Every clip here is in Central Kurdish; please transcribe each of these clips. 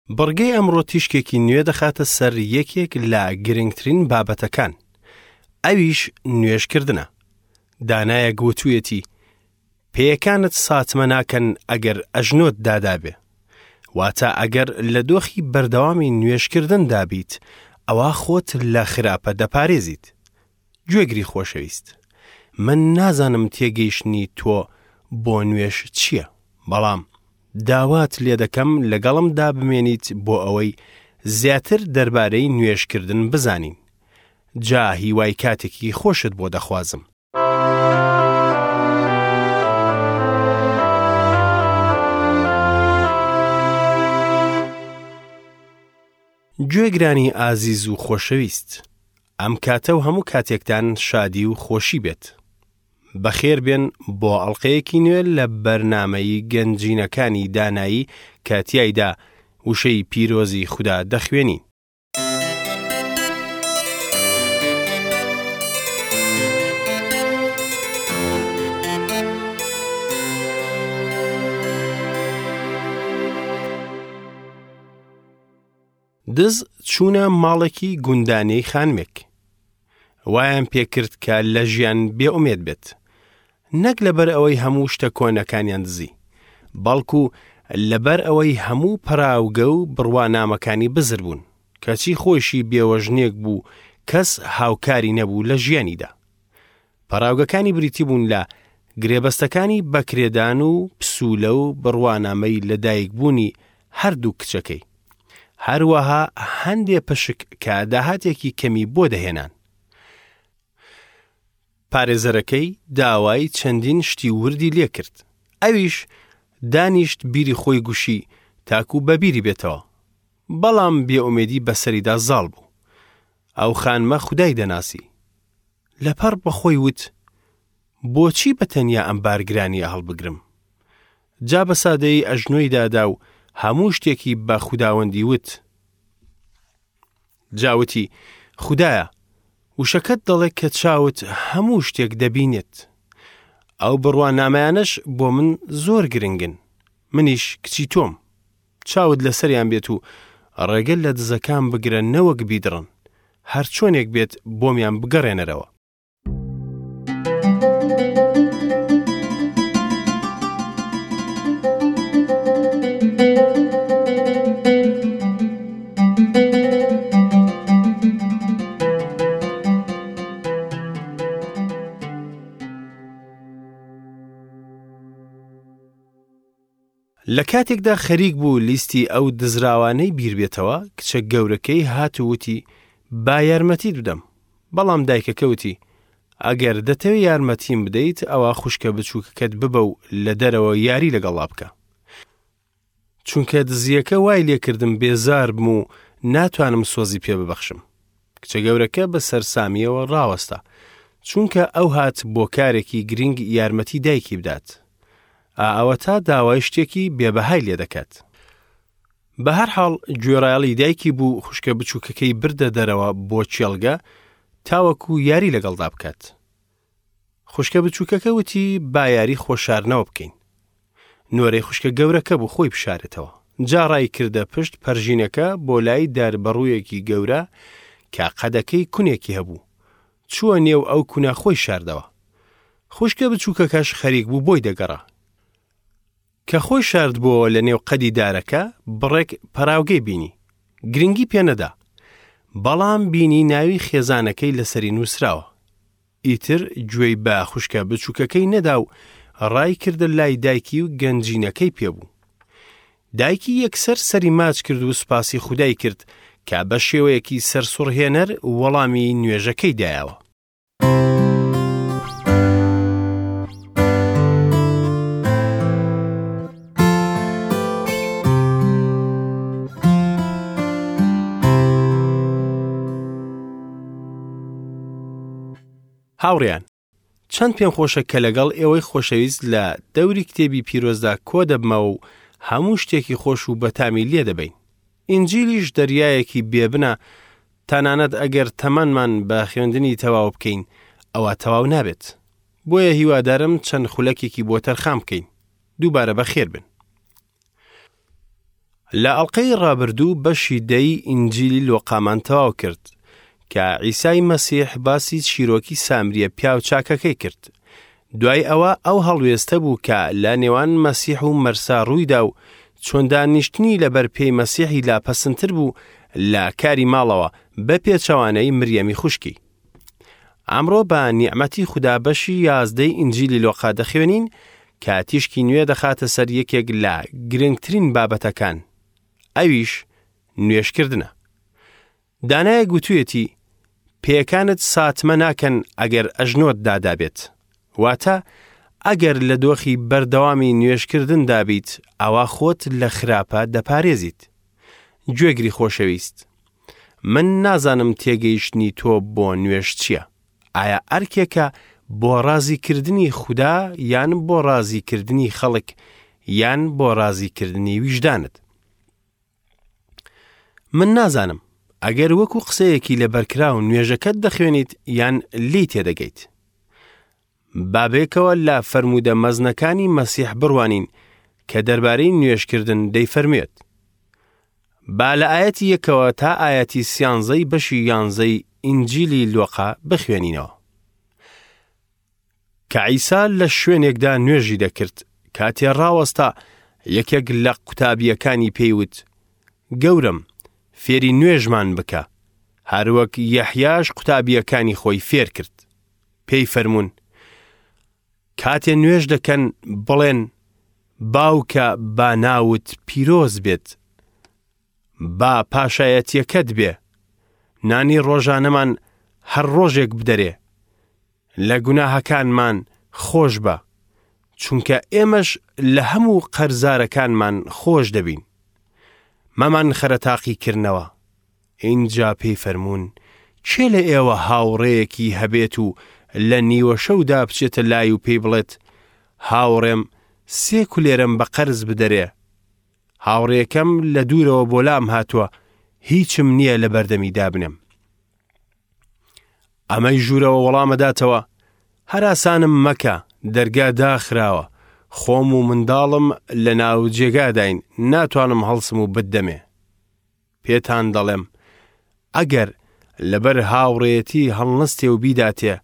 بڕگەی ئەمڕۆ تیشکێکی نوێ دەخاتە سەر یەکێک لە گرنگترین بابەتەکان، ئەویش نوێژکردنە. دانایەک وتوویەتی، پێیەکانت ساتمە ناکەن ئەگەر ئەژنۆت دادابێ. واتە ئەگەر لە دۆخی بەردەوامی نوێژکردندا بیت، ئەوا خۆت لە خراپە دەپارێزیت. گوێگری خۆشەویست، من نازانم تێگەیشتنی تۆ بۆ نوێژ چییە، بەڵام داوات لێدەکەم لەگەڵمدا بمێنیت بۆ ئەوەی زیاتر دەربارەی نوێژکردن بزانین. جا هیوای کاتێکی خۆشت بۆ دەخوازم. گوێگرانی ئازیز و خۆشەویست، ئەم کاتە و هەموو کاتێکتان شادی و خۆشی بێت. بەخێر بێن بۆ ئەڵقەیەکی نوێ لە بەرنامەی گەنجینەکانی دانایی کە تیایدا وشەی پیرۆزی خودا دەخوێنین. دز چوونە ماڵێکی گوندانەی خانمێک. وایان پێکرد کە لە ژیان بێئومێد بێت. نەک لەبەر ئەوەی هەموو شتە کۆنەکانیان دزی، بەڵکو لەبەر ئەوەی هەموو پەراوگە و بڕوانامەکانی بزر بوون، کەچی خۆیشی بێوەژنێک بوو کەس هاوکاری نەبوو لە ژیانیدا. پەڕاوگەکانی بریتی بوون لە گرێبەستەکانی بەکرێدان و پسوولە و بڕوانامەی لەدایکبوونی هەردوو کچەکەی. هەروەها هەندێ پشک کە داهاتێکی کەمی بۆ دەهێنان. پارێزەرەکەی داوای چەندین شتی وردی لێکرد. ئەویش دانیشت بیری خۆی گوشی تاکو بەبیری بێتەوە. بەڵام بێئومێدی بەسەریدا زاڵ بوو. ئەو خانمە خودای دەناسی. لەپڕ بە خۆی وت، بۆچی بە تەنیا ئەم بارگرانییە هەڵبگرم؟ جا بە سادەیی ئەژنۆی دادا و هەموو شتێکی بە خوداوەندی وت. جا وتی، خودایە، وشەکەت دەڵێ کە چاوت هەموو شتێک دەبینێت. ئەو بڕوانامەیانەش بۆ من زۆر گرنگن. منیش کچی تۆم. چاوت لەسەریان بێت و ڕێگە لە دزەکان بگرە نەوەک بیدڕن. هەرچۆنێک بێت بۆمیان بگەڕێنەرەوە. لە کاتێکدا خەریک بوو لیستی ئەو دزراوانەی بیر بێتەوە، کچە گەورەکەی هات و وتی، با یارمەتیت بدەم. بەڵام دایکەکە وتی، ئەگەر دەتەوێ یارمەتیم بدەیت، ئەوا خوشکە بچووکەکەت ببە و لە دەرەوە یاری لەگەڵا بکە. چونکە دزییەکە وای لێکردم بێزار بم و ناتوانم سۆزی پێ ببەخشم. کچە گەورەکە بە سەرسامییەوە ڕاوەستا، چونکە ئەو هات بۆ کارێکی گرینگ یارمەتی دایکی بدات. ئا ئەوەتا داوای شتێکی بێبەهای لێ دەکات. بە هەر حاڵ گوێڕایەڵی دایکی بوو خوشکە بچووکەکەی بردە دەرەوە بۆ کێڵگە تاوەکو یاری لەگەڵدا بکات. خوشکە بچووکەکە وتی با یاری خۆشارنەوە بکەین. نۆرەی خوشکە گەورەکە بوو خۆی بشارێتەوە. جا ڕای کردە پشت پەرژینەکە بۆ لای داربەڕوویەکی گەورە کە قەدەکەی کونێکی هەبوو. چووە نێو ئەو کونە خۆی شاردەوە. خوشکە بچووکەکەش خەریک بوو بۆی دەگەڕا. کە خۆی شاردبۆوە لە نێو قەدی دارەکە بڕێک پەراوگەی بینی. گرنگی پێ نەدا. بەڵام بینی ناوی خێزانەکەی لەسەری نووسراوە. ئیتر گوێی بە خوشکە بچووکەکەی نەدا و ڕای کردە لای دایکی و گەنجینەکەی پێ بوو. دایکی یەکسەر سەری ماچ کرد و سوپاسی خودای کرد کە بە شێوەیەکی سەرسوڕهێنەر وەڵامی نوێژەکەی دایەوە. هاوڕێیان، چەند پێم خۆشە کە لەگەڵ ئێوەی خۆشەویست لە دەوری کتێبی پیرۆزدا کۆ دەبمەوە و هەموو شتێکی خۆش و بەتامی لێ دەبەین. ئینجیلیش دەریایەکی بێبنە، تەنانەت ئەگەر تەمەنمان بە خوێندنی تەواو بکەین، ئەوا تەواو نابێت. بۆیە هیوادارم چەند خولەکێکی بۆ تەرخان بکەین. دووبارە بەخێر بن. لە ئەڵقەی ڕابردوو بەشی دەی ئینجیلی لۆقامان تەواو کرد کە عیسای مەسیح باسی چیرۆکی سامریە پیاو چاکەکەی کرد. دوای ئەوە ئەو هەڵوێستە بوو کە لە نێوان مەسیح و مەرسا ڕوویدا و چۆن دانیشتنی لەبەر پێی مەسیحی لا پەسندتر بوو لە کاری ماڵەوە بە پێچەوانەی مریەمی خوشکی. ئەمڕۆ بە نیعمەتی خودا بەشی یازدەی ئینجیلی لۆقا دەخوێنین کە تیشکی نوێ دەخاتە سەر یەکێک لە گرنگترین بابەتەکان ئەویش نوێژکردنە. دانایەک گوتویەتی پێیەکانت ساتمە ناکەن ئەگەر ئەژنۆت دادابێت. واتە ئەگەر لە دۆخی بەردەوامی نوێژکردندا بیت ئەوا خۆت لە خراپە دەپارێزیت. گوێگری خۆشەویست، من نازانم تێگەیشتنی تۆ بۆ نوێژ چییە؟ ئایا ئەرکێکە بۆ ڕازیکردنی خودا یان بۆ ڕازیکردنی خەڵک یان بۆ ڕازیکردنی ویژدانت؟ من نازانم ئەگەر وەکو قسەیەکی لەبەرکراو نوێژەکەت دەخوێنیت یان لێی تێدەگەیت. با بێکەوە لە فەرموودە مەزنەکانی مەسیح بڕوانین کە دەربارەی نوێژکردن دەیفەرموێت. با لە ئایەتی یەکەوە تا ئایەتی سیانزەی بەشی یانزەی ئینجیلی لۆقا بخوێنینەوە. کە عیسا لە شوێنێکدا نوێژی دەکرد، کاتێ ڕاوەستا، یەکێک لە قوتابییەکانی پێی وت، گەورەم، فێری نوێژمان بکە، هەروەک یەحیاش قوتابییەکانی خۆی فێر کرد. پێی فەرموون، کاتێ نوێژ دەکەن بڵێن، باوکە با ناوت پیرۆز بێت، با پاشایەتییەکەت بێ، نانی ڕۆژانەمان هەر ڕۆژێک بدەرێ، لە گوناهەکانمان خۆش بە، چونکە ئێمەش لە هەموو قەرزارەکانمان خۆش دەبین. مەمانخەرە تاقیکردنەوە. ئینجا پێی فەرموون، کێ لە ئێوە هاوڕێیەکی هەبێت و لە نیوەشەودا بچێتە لای و پێی بڵێت، هاوڕێم سێ کولێرەم بە قەرز بدەرێ، هاوڕێکەم لە دوورەوە بۆ لام هاتووە، هیچم نییە لە بەردەمی دابنێم. ئەمەی ژوورەوە وەڵامەداتەوە، هەراسانم مەکە، دەرگا داخراوە، خۆم و منداڵم لە ناو جێگاداین، ناتوانم هەڵسم و بتدەمێ. پێتان دەڵێم، ئەگەر لەبەر هاوڕێیەتی هەڵنەستێ و بیداتێ،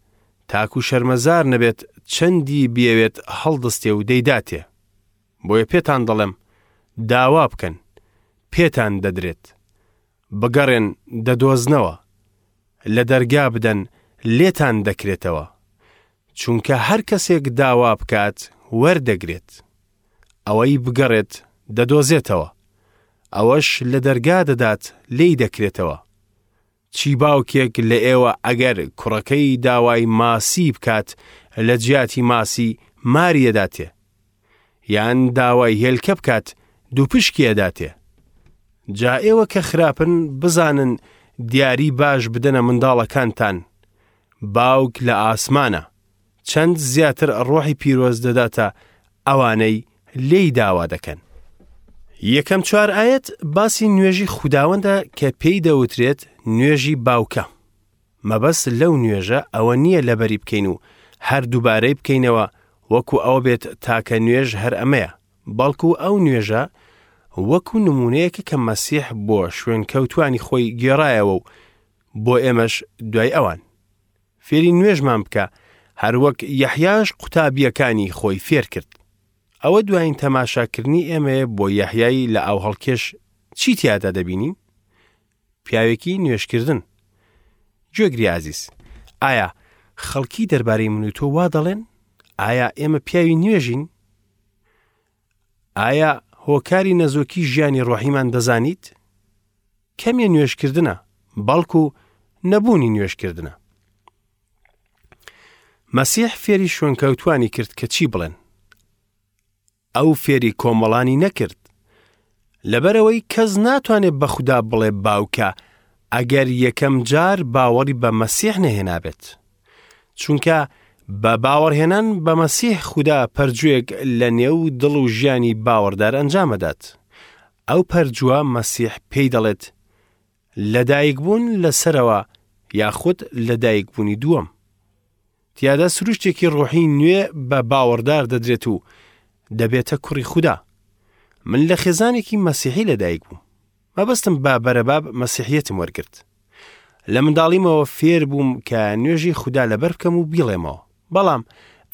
تاکو شەرمەزار نەبێت چەندی بیەوێت هەڵدەستێ و دەیداتێ. بۆیە پێتان دەڵێم، داوا بکەن، پێتان دەدرێت. بگەڕێن دەدۆزنەوە، لە دەرگا بدەن لێتان دەکرێتەوە. چونکە هەر کەسێک داوا بکات وەردەگرێت. ئەوەی بگەڕێت دەدۆزێتەوە. ئەوەش لە دەرگا دەدات لێی دەکرێتەوە. چی باوکێک لە ئێوە ئەگەر کوڕەکەی داوای ماسی بکات لە جیاتی ماسی ماری ئەداتێ؟ یان داوای هێلکە بکات دووپشکی ئەداتێ؟ جا ئێوە کە خراپن بزانن دیاری باش بدەنە منداڵەکانتان، باوک لە ئاسمانە، چەند زیاتر ڕۆحی پیرۆز دەداتە ئەوانەی لێی داوا دەکەن. یەکەم چوار ئایەت باسی نوێژی خوداوەندە کە پێی دەوترێت نوێژی باوکە. مەبەست لەو نوێژە ئەوە نییە لەبەری بکەین و هەر دووبارەی بکەینەوە وەکو ئەوە بێت تاکە نوێژ هەر ئەمەیە، بەڵکو ئەو نوێژە وەکو نمونەیەکە کە مەسیح بۆ شوێنکەوتوانی خۆی گێڕایەوە و بۆ ئێمەش دوای ئەوان. فێری نوێژمان بکە، هەروەک یەحیاش قوتابییەکانی خۆی فێر کرد. ئەوە دوایین تەماشاکردنی ئێمەیە بۆ یەحیای لە ئاوهەڵکێش چی تیادا دەبینین؟ پیاوێکی نوێژکردن. گوێگری ئازیز، ئایا خەڵکی دەربارەی من و تۆ وا دەڵێن؟ ئایا ئێمە پیاوی نوێژین؟ ئایا هۆکاری نەزۆکی ژیانی ڕۆحیمان دەزانیت؟ کەمیە نوێژکردنە، بەڵکو نەبوونی نوێژکردنە. مەسیح فێری شوێنکەوتوانی کرد کە چی بڵێن. ئەو فێری کۆمەڵانی نەکرد. لەبەرئەوەی کەس ناتوانێت بە خودا بڵێ باوکە ئەگەر یەکەم جار باوەڕی بە مەسیح نەهێنابێت. چونکە بە باوەڕهێنان بە مەسیح خودا پەرجووێک لە نێو دڵ و ژیانی باوەڕدار ئەنجامەدات. ئەو پەرجووە مەسیح پێی دەڵێت لەدایکبوون لە سەرەوە یاخود لەدایکبوونی دووەم. تیادا سروشتێکی ڕۆحی نوێ بە باوەڕدار دەدرێت و دەبێتە کوڕی خودا. من لە خێزانێکی مەسیحی لەدایک بووم. مەبەستم بە بەرەباب مەسیحیەتم وەرگرت. لە منداڵیمەوە فێر بووم کە نوێژی خودا لەبەر بکەم و بیڵێمەوە. بەڵام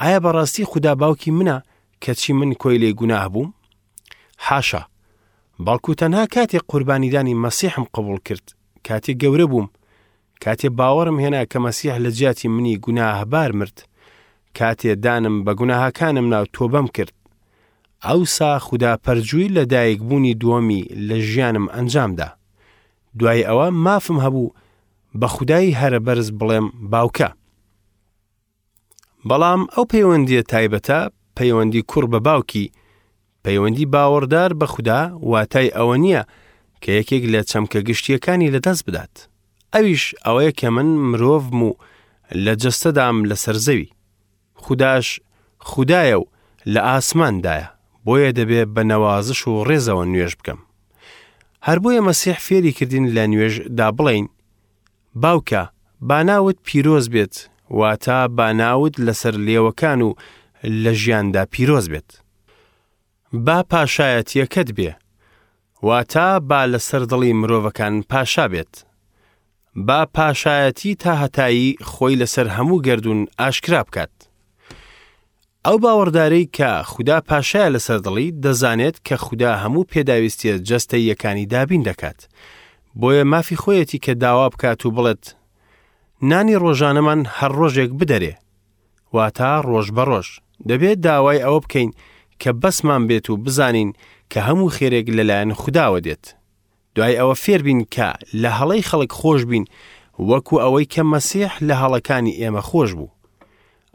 ئایا بەڕاستی خودا باوکی منە کەچی من کۆیلەی گوناه بووم؟ حاشا! بەڵکو تەنها کاتێک قوربانیدانی مەسیحم قبوڵ کرد، کاتێک گەورە بووم، کاتێ باوەڕم هێنا کە مەسیح لە جیاتی منی گوناهبار مرد، کاتێ دانم بە گوناهەکانم نا و تۆبەم کرد، ئەوسا خودا پەرجووی لە دایکبوونی دووەمی لە ژیانم ئەنجام دا. دوای ئەوە مافم هەبوو بە خودای هەرەبەرز بڵێم باوکە. بەڵام ئەو پەیوەندییە تایبەتە، پەیوەندی کوڕ بە باوکی، پەیوەندی باوەڕدار بە خودا واتای ئەوە نییە کە یەکێک لە چەمکە گشتییەکانی لەدەست بدات. ئەویش ئەوەیە کە من مرۆڤم و لە جەستەدام لەسەر زەوی. خوداش خودایە و لە ئاسماندایە، بۆیە دەبێ بە نەوازش و ڕێزەوە نوێژ بکەم. هەر بۆیە مەسیح فێری کردین لە نوێژ دا بڵێین، باوکە، با ناوت پیرۆز بێت، واتە با ناوت لەسەر لێوەکان و لە ژیاندا پیرۆز بێت. با پاشایەتییەکەت بێ، واتە با لەسەر دڵی مرۆڤەکان پاشا بێت. با پاشایەتی تاهەتایی خۆی لەسەر هەموو گەردوون ئاشکرا بکات. ئەو باوەڕدارەی کە خودا پاشایە لەسەر دڵی، دەزانێت کە خودا هەموو پێداویستییە جەستەییەکانی دابین دەکات. بۆیە مافی خۆیەتی کە داوا بکات و بڵێت، نانی ڕۆژانەمان هەر ڕۆژێک بدەرێ. واتە ڕۆژ بە ڕۆژ. دەبێت داوای ئەوە بکەین کە بەسمان بێت و بزانین کە هەموو خێرێک لەلایەن خوداوە دێت. دوای ئەوە فێربین کە لە هەڵەی خەڵک خۆش بین وەکو ئەوەی کە مەسیح لە هەڵەکانی ئێمە خۆش بوو.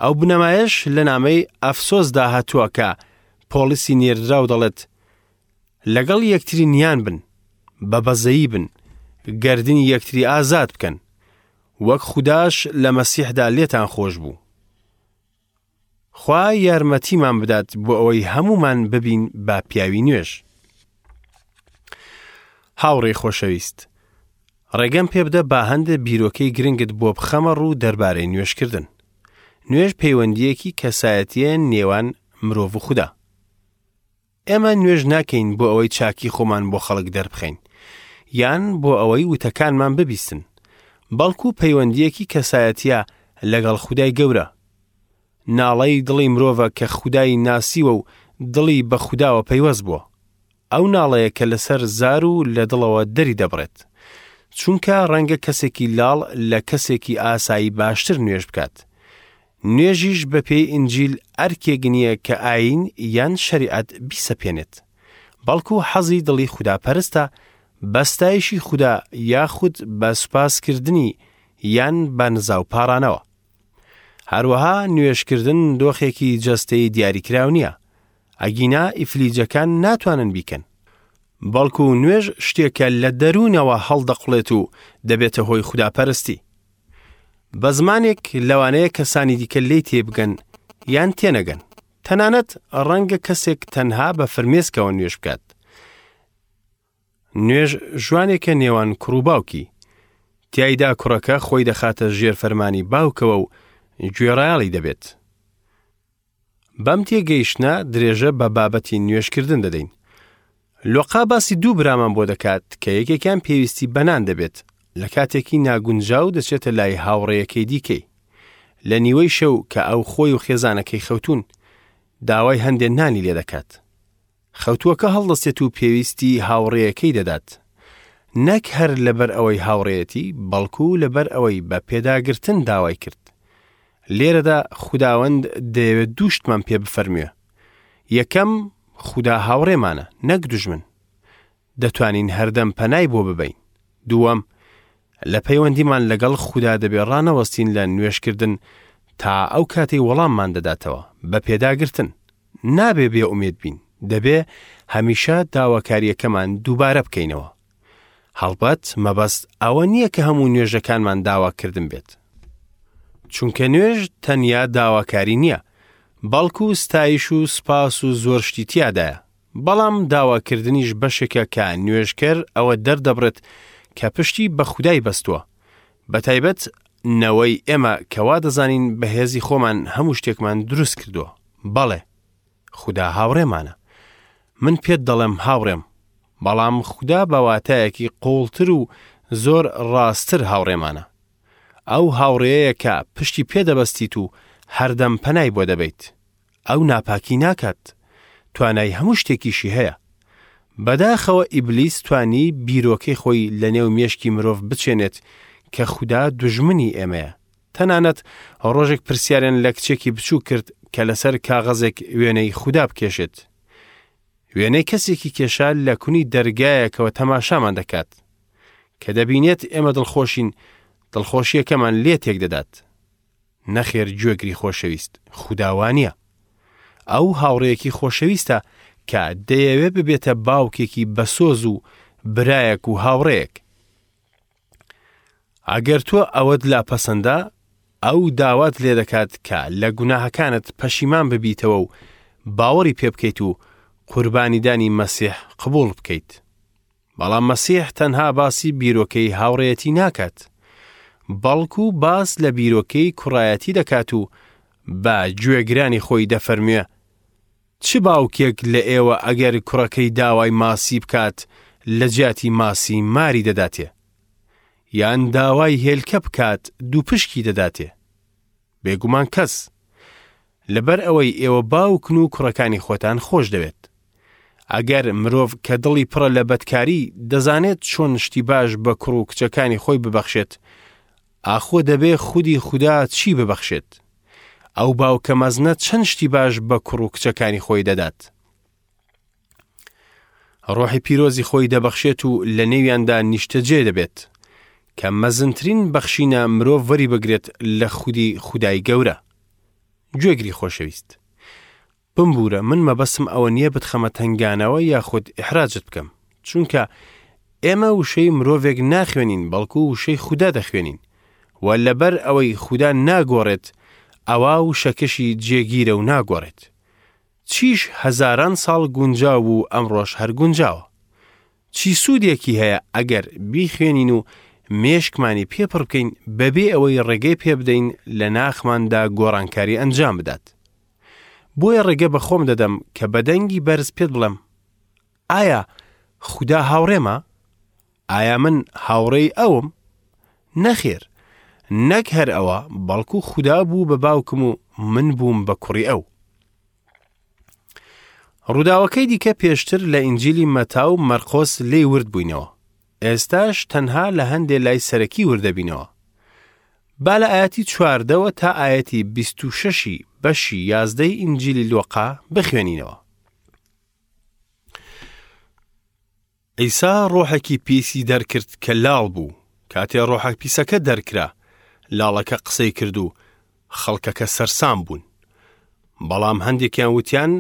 ئەو بنەمایەش لە نامەی ئەفسۆسدا هاتووە کە پۆڵسی نێردراو دەڵێت، لەگەڵ یەکتری نیان بن، بە بەزەیی بن، گەردنی یەکتری ئازاد بکەن، وەک خوداش لە مەسیحدا لێتان خۆش بوو. خوا یارمەتیمان بدات بۆ ئەوەی هەموومان ببین بە پیاوی نوێژ. هاوڕێی خۆشەویست، ڕێگەم پێ بدە با هەندێ بیرۆکەی گرنگت بۆ بخەمە ڕوو دەربارەی نوێژکردن. نوێژ پەیوەندییەکی کەسایەتییە نێوان مرۆڤ و خودا. ئێمە نوێژ ناکەین بۆ ئەوەی چاکی خۆمان بۆ خەڵک دەربخەین یان بۆ ئەوەی وتەکانمان ببیستن، بەڵکو پەیوەندییەکی کەسایەتییە لەگەڵ خودای گەورە. ناڵەی دڵی مرۆڤە کە خودای ناسیوە و دڵی بە خوداوە پەیوەست بووە. ئەو ناڵەیە کە لەسەر زار و لە دڵەوە دەری دەبڕێت. چونکە ڕەنگە کەسێکی لاڵ لە کەسێکی ئاسایی باشتر نوێژ بکات. نوێژیش بە پێی ئینجیل ئەرکێک نییە کە ئایین یان شەریعەت بیسەپێنێت. بەڵکو حەزی دڵی خوداپەرستە بە ستایشی خودا یاخود بە سوپاسکردنی یان بە نزا و پاڕانەوە. هەروەها نوێژکردن دۆخێکی جەستەیی دیاریکراو نییە، ئەگینا ئیفلیجەکان ناتوانن بیکەن. بەڵکو نوێژ شتێکە لە دەروونەوە هەڵدەقوڵێت و دەبێتە هۆی خوداپەرستی. بە زمانێک لەوانەیە کەسانی دیکە لێی تێبگەن یان تێنەگەن. تەنانەت ڕەنگە کەسێک تەنها بە فرمێسکەوە نوێژ بکات. نوێژ ژوانێکە نێوان کوڕ و باوکی. تیایدا کوڕەکە خۆی دەخاتە ژێر فەرمانی باوکەوە و گوێڕایەڵی دەبێت. بەم تێگەیشتنە درێژە بە بابەتی نوێژکردن دەدەین. لۆقا باسی دوو برامان بۆ دەکات کە یەکێکیان پێویستی بە نان دەبێت، لە کاتێکی ناگونجاو دەچێتە لای هاوڕێیەکەی دیکەی. لە نیوەی شەو کە ئەو خۆی و خێزانەکەی خەوتوون، داوای هەندێ نانی لێ دەکات. خەوتووەکە هەڵدەستێت و پێویستی هاوڕێیەکەی دەدات. نەک هەر لەبەر ئەوەی هاوڕێیەتی، بەڵکو لەبەر ئەوەی بە پێداگرتن داوای کرد. لێرەدا خوداوەند دەیەوێت دوو شتمان پێ بفەرموێ. یەکەم، خودا هاوڕێمانە، نەک دوژمن. دەتوانین هەردەم پەنای بۆ ببەین. دووەم، لە پەیوەندیمان لەگەڵ خودا دەبێ ڕانەوەستین لە نوێژکردن تا ئەو کاتەی وەڵاممان دەداتەوە، بە پێداگرتن. نابێ بێ ئومێد بین، دەبێ هەمیشە داواکارییەکەمان دووبارە بکەینەوە. هەڵبەت مەبەست ئەوە نییە کە هەموو نوێژەکانمان داواکردن بێت. چونکە نوێژ تەنیا داواکاری نییە، بەڵکو ستایش و سوپاس و زۆر شتی تیادایە. بەڵام داواکردنیش بەشێکە کە نوێژکەر ئەوە دەردەبڕێت کە پشتی بە خودای بەستووە. بەتایبەت نەوەی ئێمە کە وا دەزانین بە هێزی خۆمان هەموو شتێکمان دروست کردووە. بەڵێ، خودا هاوڕێمانە. من پێت دەڵێم هاوڕێم، بەڵام خودا بە واتایەکی قووڵتر و زۆر ڕاستتر هاوڕێمانە. ئەو هاوڕێیە کە پشتی پێ دەبەستیت و هەردەم پەنای بۆ دەبەیت. ئەو ناپاکی ناکات. توانای هەموو شتێکیشی هەیە. بەداخەوە ئیبلیس توانی بیرۆکەی خۆی لە نێو مێشکی مرۆڤ بچێنێت کە خودا دوژمنی ئێمەیە. تەنانەت ڕۆژێک پرسیاریان لە کچێکی بچووک کرد کە لەسەر کاغەزێک وێنەی خودا بکێشێت. وێنەی کەسێکی کێشا لە کونی دەرگایەکەوە تەماشامان دەکات. کە دەبینێت ئێمە دڵخۆشین، دڵخۆشییەکەمان لێ تێک دەدات. نەخێر گوێگری خۆشەویست، خودا وانییە. ئەو هاوڕێیەکی خۆشەویستە کە دەیەوێ ببێتە باوکێکی بەسۆز و برایەک و هاوڕێیەک. ئەگەر تۆ ئەوەت لا پەسەندە، ئەو داوات لێ دەکات کە لە گوناهەکانت پەشیمان ببیتەوە و باوەڕی پێ بکەیت و قوربانیدانی مەسیح قبوڵ بکەیت. بەڵام مەسیح تەنها باسی بیرۆکەی هاوڕێیەتی ناکات، بەڵکو باس لە بیرۆکەی کوڕایەتی دەکات و بە گوێگرانی خۆی دەفەرموێ، چ باوکێک لە ئێوە ئەگەر کوڕەکەی داوای ماسی بکات لە جیاتی ماسی ماری دەداتێ؟ یان داوای هێلکە بکات دووپشکی دەداتێ؟ بێگومان کەس. لەبەر ئەوەی ئێوە باوکن و کوڕەکانی خۆتان خۆش دەوێت. ئەگەر مرۆڤ کە دڵی پڕە لە بەدکاری دەزانێت چۆن شتی باش بە کوڕ و کچەکانی خۆی ببەخشێت، ئاخۆ دەبێ خودی خودا چی ببەخشێت؟ ئەو باوکە مەزنە چەند شتی باش بە کوڕ و کچەکانی خۆی دەدات. ڕۆحی پیرۆزی خۆی دەبەخشێت و لە نێویاندا نیشتەجێ دەبێت، کە مەزنترین بەخشینە مرۆڤ وەری بگرێت لە خودی خودای گەورە. گوێگری خۆشەویست. بمبوورە من مەبەستم ئەوە نییە بتخەمە تەنگانەوە یاخود ئیحراجت بکەم، چونکە ئێمە وشەی مرۆڤێک ناخوێنین بەڵکو وشەی خودا دەخوێنین و لەبەر ئەوەی خودا ناگۆڕێت ئەوا وشەکەشی جێگیرە و ناگۆڕێت. چیش هەزاران ساڵ گونجاو بوو ئەمڕۆش هەر گونجاوە. چی سوودێکی هەیە ئەگەر بیخوێنین و مێشکمانی پێ پڕ بکەین بەبێ ئەوەی ڕێگەی پێ بدەین لە ناخماندا گۆڕانکاری ئەنجام بدات؟ بۆیە ڕێگە بە خۆم دەدەم کە بە دەنگی بەرز پێت بڵێم، ئایا خودا هاوڕێمە؟ ئایا من هاوڕێی ئەوم؟ نەخێر، نەک هەر ئەوە، بەڵکو خودا بوو بە باوکم و من بووم بە کوڕی ئەو. ڕووداوەکەی دیکە پێشتر لە ئینجیلی مەتا و مەرقۆس لێی ورد بووینەوە. ئێستاش تەنها لە هەندێ لای سەرەکی ورد دەبینەوە. با لە ئایەتی چواردەوە تا ئایەتی 26ی بەشی یازدەی ئینجیلی لۆقا بخوێنینەوە. عیسا ڕۆحێکی پیسی دەرکرد کە لاڵ بوو. کاتێ ڕۆحە پیسەکە دەرکرا، لاڵەکە قسەی کرد و خەڵکەکە سەرسام بوون. بەڵام هەندێکیان وتیان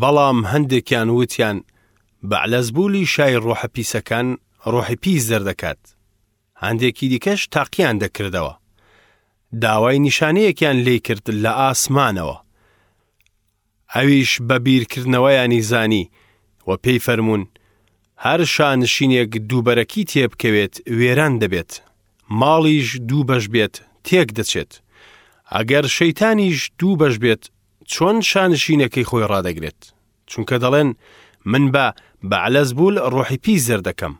بەڵام هەندێکیان وتیان بەعلەزبولی شای ڕۆحە پیسەکان ڕۆحی پیس دەردەکات. هەندێکی دیکەش تاقییان دەکردەوە. داوای نیشانەیەکیان لێی کرد لە ئاسمانەوە. ئەویش بە بیرکردنەوەیانی زانی و پێی فەرموون، هەر شانشینێک دووبەرەکی تێبکەوێت وێران دەبێت، ماڵیش دوو بەش بێت تێک دەچێت. ئەگەر شەیتانیش دوو بەش بێت چۆن شانشینەکەی خۆی ڕادەگرێت؟ چونکە دەڵێن من بە بەعلەزبول ڕۆحی پیس دەردەکەم.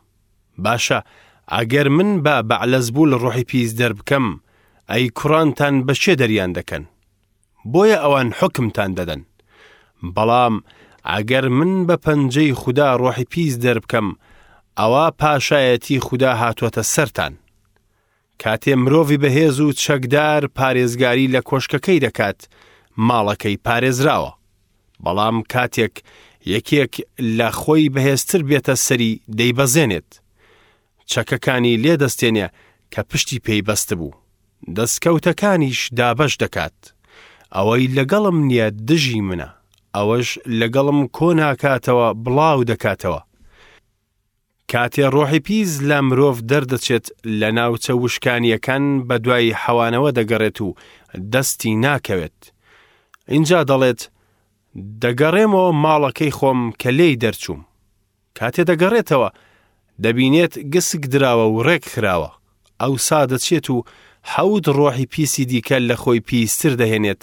باشە ئەگەر من بە بەعلەزبول ڕۆحی پیس دەربکەم، ئەی کوڕانتان بە کێ دەریان دەکەن؟ بۆیە ئەوان حوکمتان دەدەن. بەڵام ئەگەر من بە پەنجەی خودا ڕۆحی پیس دەربکەم، ئەوا پاشایەتی خودا هاتووەتە سەرتان. کاتێ مرۆڤی بەهێز و چەکدار پارێزگاری لە کۆشکەکەی دەکات، ماڵەکەی پارێزراوە. بەڵام کاتێک یەکێک لە خۆی بەهێزتر بێتە سەری دەیبەزێنێت. چەکەکانی لێ دەستێنێ کە پشتی پێی بەستبوو. دەستکەوتەکانیش دابەش دەکات. ئەوەی لەگەڵم نییە دژی منە، ئەوەش لەگەڵم کۆ ناکاتەوە بڵاو دەکاتەوە. کاتێ ڕۆحی پیس لە مرۆڤ دەردەچێت لە ناوچە وشکانییەکان بەدوای حەوانەوە دەگەڕێت و دەستی ناکەوێت. ئینجا دەڵێت، دەگەڕێمەوە ماڵەکەی خۆم کە لێی دەرچووم. کاتێ دەگەڕێتەوە، دەبینێت گسک دراوە و ڕێک خراوە. ئەوسا دەچێت و حەوت ڕۆحی پیسی دیکە لە خۆی پیستر دەهێنێت،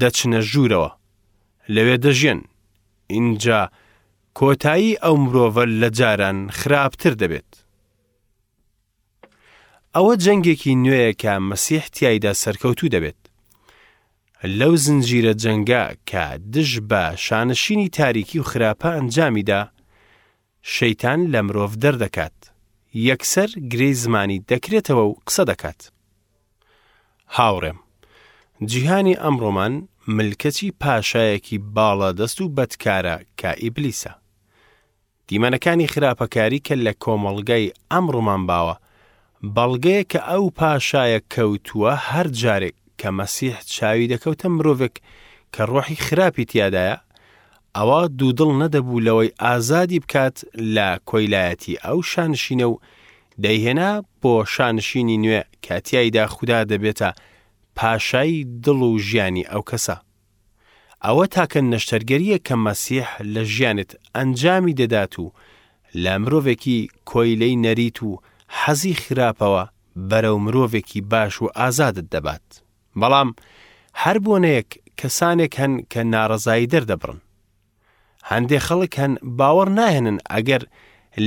دەچنە ژوورەوە. لەوێ دەژیێن. ئینجا کۆتایی ئەو مرۆڤە لە جاران خراپتر دەبێت. ئەوە جەنگێکی نوێیە کە مەسیح تیایدا سەرکەوتوو دەبێت. لەو زنجیرە جەنگە کە دژ بە شانشینی تاریکی و خراپە ئەنجامیدا، شەیتان لە مرۆڤ دەردەکات، یەکسەر گرێی زمانی دەکرێتەوە و قسە دەکات. هاوڕێم، جیهانی ئەمڕۆمان ملکەچی پاشایەکی باڵادەست و بەدکارە کە ئیبلیسە. دیمەنەکانی خراپەکاری کە لە کۆمەڵگای ئەمڕۆمان باوە، بەڵگەیە کە ئەو پاشایە کەوتووە هەر جارێک کە مەسیح چاوی دەکەوتە مرۆڤێک کە ڕۆحی خراپی تیادایە، ئەوا دوودڵ نەدەبوو لەوەی ئازادی بکات لە کۆیلایەتی ئەو شانشینە و دەیهێنا بۆ شانشینی نوێ کە تیایدا خودا دەبێتە پاشای دڵ و ژیانی ئەو کەسە. ئەوە تاکە نەشتەرگەرییە کە مەسیح لە ژیانت ئەنجامی دەدات و لە مرۆڤێکی کۆیلەی نەریت و حەزی خراپەوە بەرەو مرۆڤێکی باش و ئازادت دەبات. بەڵام هەر بۆنەیەک کەسانێک هەن کە ناڕەزایی دەردەبڕن. هەندێ خەڵک هەن باوەڕ ناهێنن ئەگەر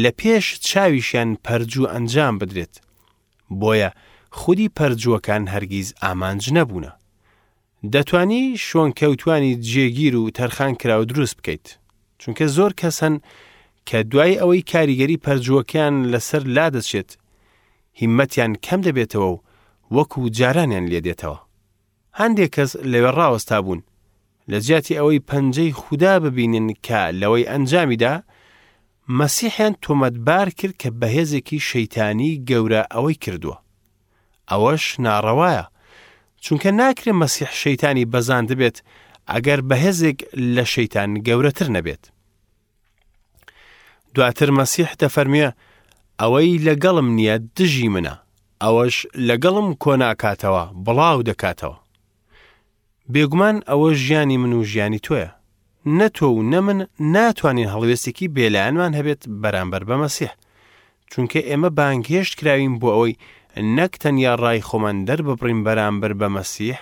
لە پێش چاویشیان پەرجوو ئەنجام بدرێت. بۆیە خودی پەرجووەکان هەرگیز ئامانج نەبوونە. دەتوانی شوێنکەوتوانی جێگیر و تەرخانکراو دروست بکەیت. چونکە زۆر کەس هەن کە دوای ئەوەی کاریگەری پەرجووەکەیان لەسەر لادەچێت، هیممەتیان کەم دەبێتەوە و وەکو جارانیان لێدێتەوە. هەندێک کەس لەوێ ڕاوەستابوون، لە جیاتی ئەوەی پەنجەی خودا ببینن کە لەوەی ئەنجامیدا، مەسیحیان تۆمەتبار کرد کە بەهێزێکی شەیتانی گەورە ئەوەی کردووە. ئەوەش ناڕەوایە، چونکە ناکرێ مەسیح شەیتانی بەزاندبێت ئەگەر بەهێزێک لە شەیتان گەورەتر نەبێت. دواتر مەسیح دەفەرموێ، ئەوەی لەگەڵم نییە دژی منە، ئەوەش لەگەڵم کۆناکاتەوە بڵاو دەکاتەوە. بێگومان ئەوە ژیانی من و ژیانی تۆیە. نە تۆ و نە من ناتوانین هەڵوێستێکی بێلایەنمان هەبێت بەرامبەر بە مەسیح. چونکە ئێمە بانگهێشت کراوین بۆ ئەوەی نەک تەنیا ڕای خۆمان دەرببڕین بەرامبەر بە مەسیح،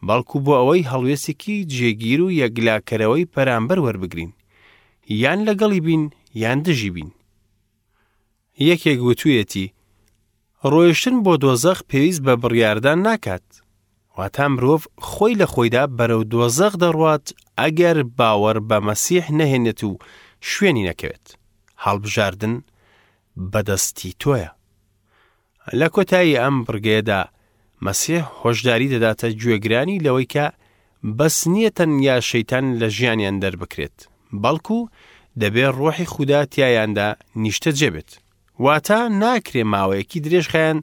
بەڵکو بۆ ئەوەی هەڵوێستێکی جێگیر و یەکلاکەرەوەی بەرامبەر وەربگرین. یان لەگەڵی بین یان دژی بین. یەکێک وتویەتی، ڕۆیشتن بۆ دۆزەخ پێویست بە بڕیاردان ناکات. واتا مرۆڤ خۆی لە خۆیدا بەرەو دۆزەخ دەڕوات ئەگەر باوەڕ بە مەسیح نەهێنێت و شوێنی نەکەوێت. هەڵبژاردن بەدەستی تۆیە. لە کۆتایی ئەم بڕگەیەدا مەسیح هۆشداری دەداتە گوێگرانی لەوەی کە بەس نییە تەنیا شەیتان لە ژیانیان دەربکرێت، بەڵکو دەبێ ڕۆحی خودا تیایاندا نیشتەجێ بێت. واتە ناکرێ ماوەیەکی درێژخایەن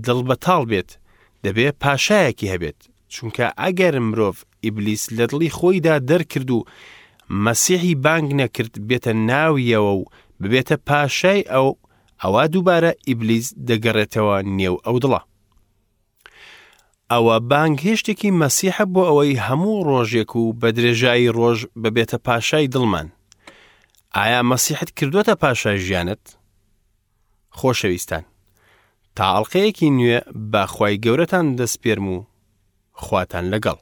دڵ بەتاڵ بێت، دەبێ پاشایەکی هەبێت، چونکە ئەگەر مرۆڤ ئیبلیس لە دڵی خۆیدا دەرکرد و مەسیحی بانگ نەکرد بێتە ناویەوە و ببێتە پاشای ئەو، ئەوا دووبارە ئیبلیس دەگەڕێتەوە نێو ئەو دڵە. ئەوە بانگهێشتێکی مەسیحە بۆ ئەوەی هەموو ڕۆژێک و بە درێژایی ڕۆژ ببێتە پاشای دڵمان. ئایا مەسیحت کردووەتە پاشای ژیانت؟ خۆشەویستان، تا ئەڵقەیەکی نوێ بە خوای گەورەتان دەسپێرم و خواتان لەگەڵ.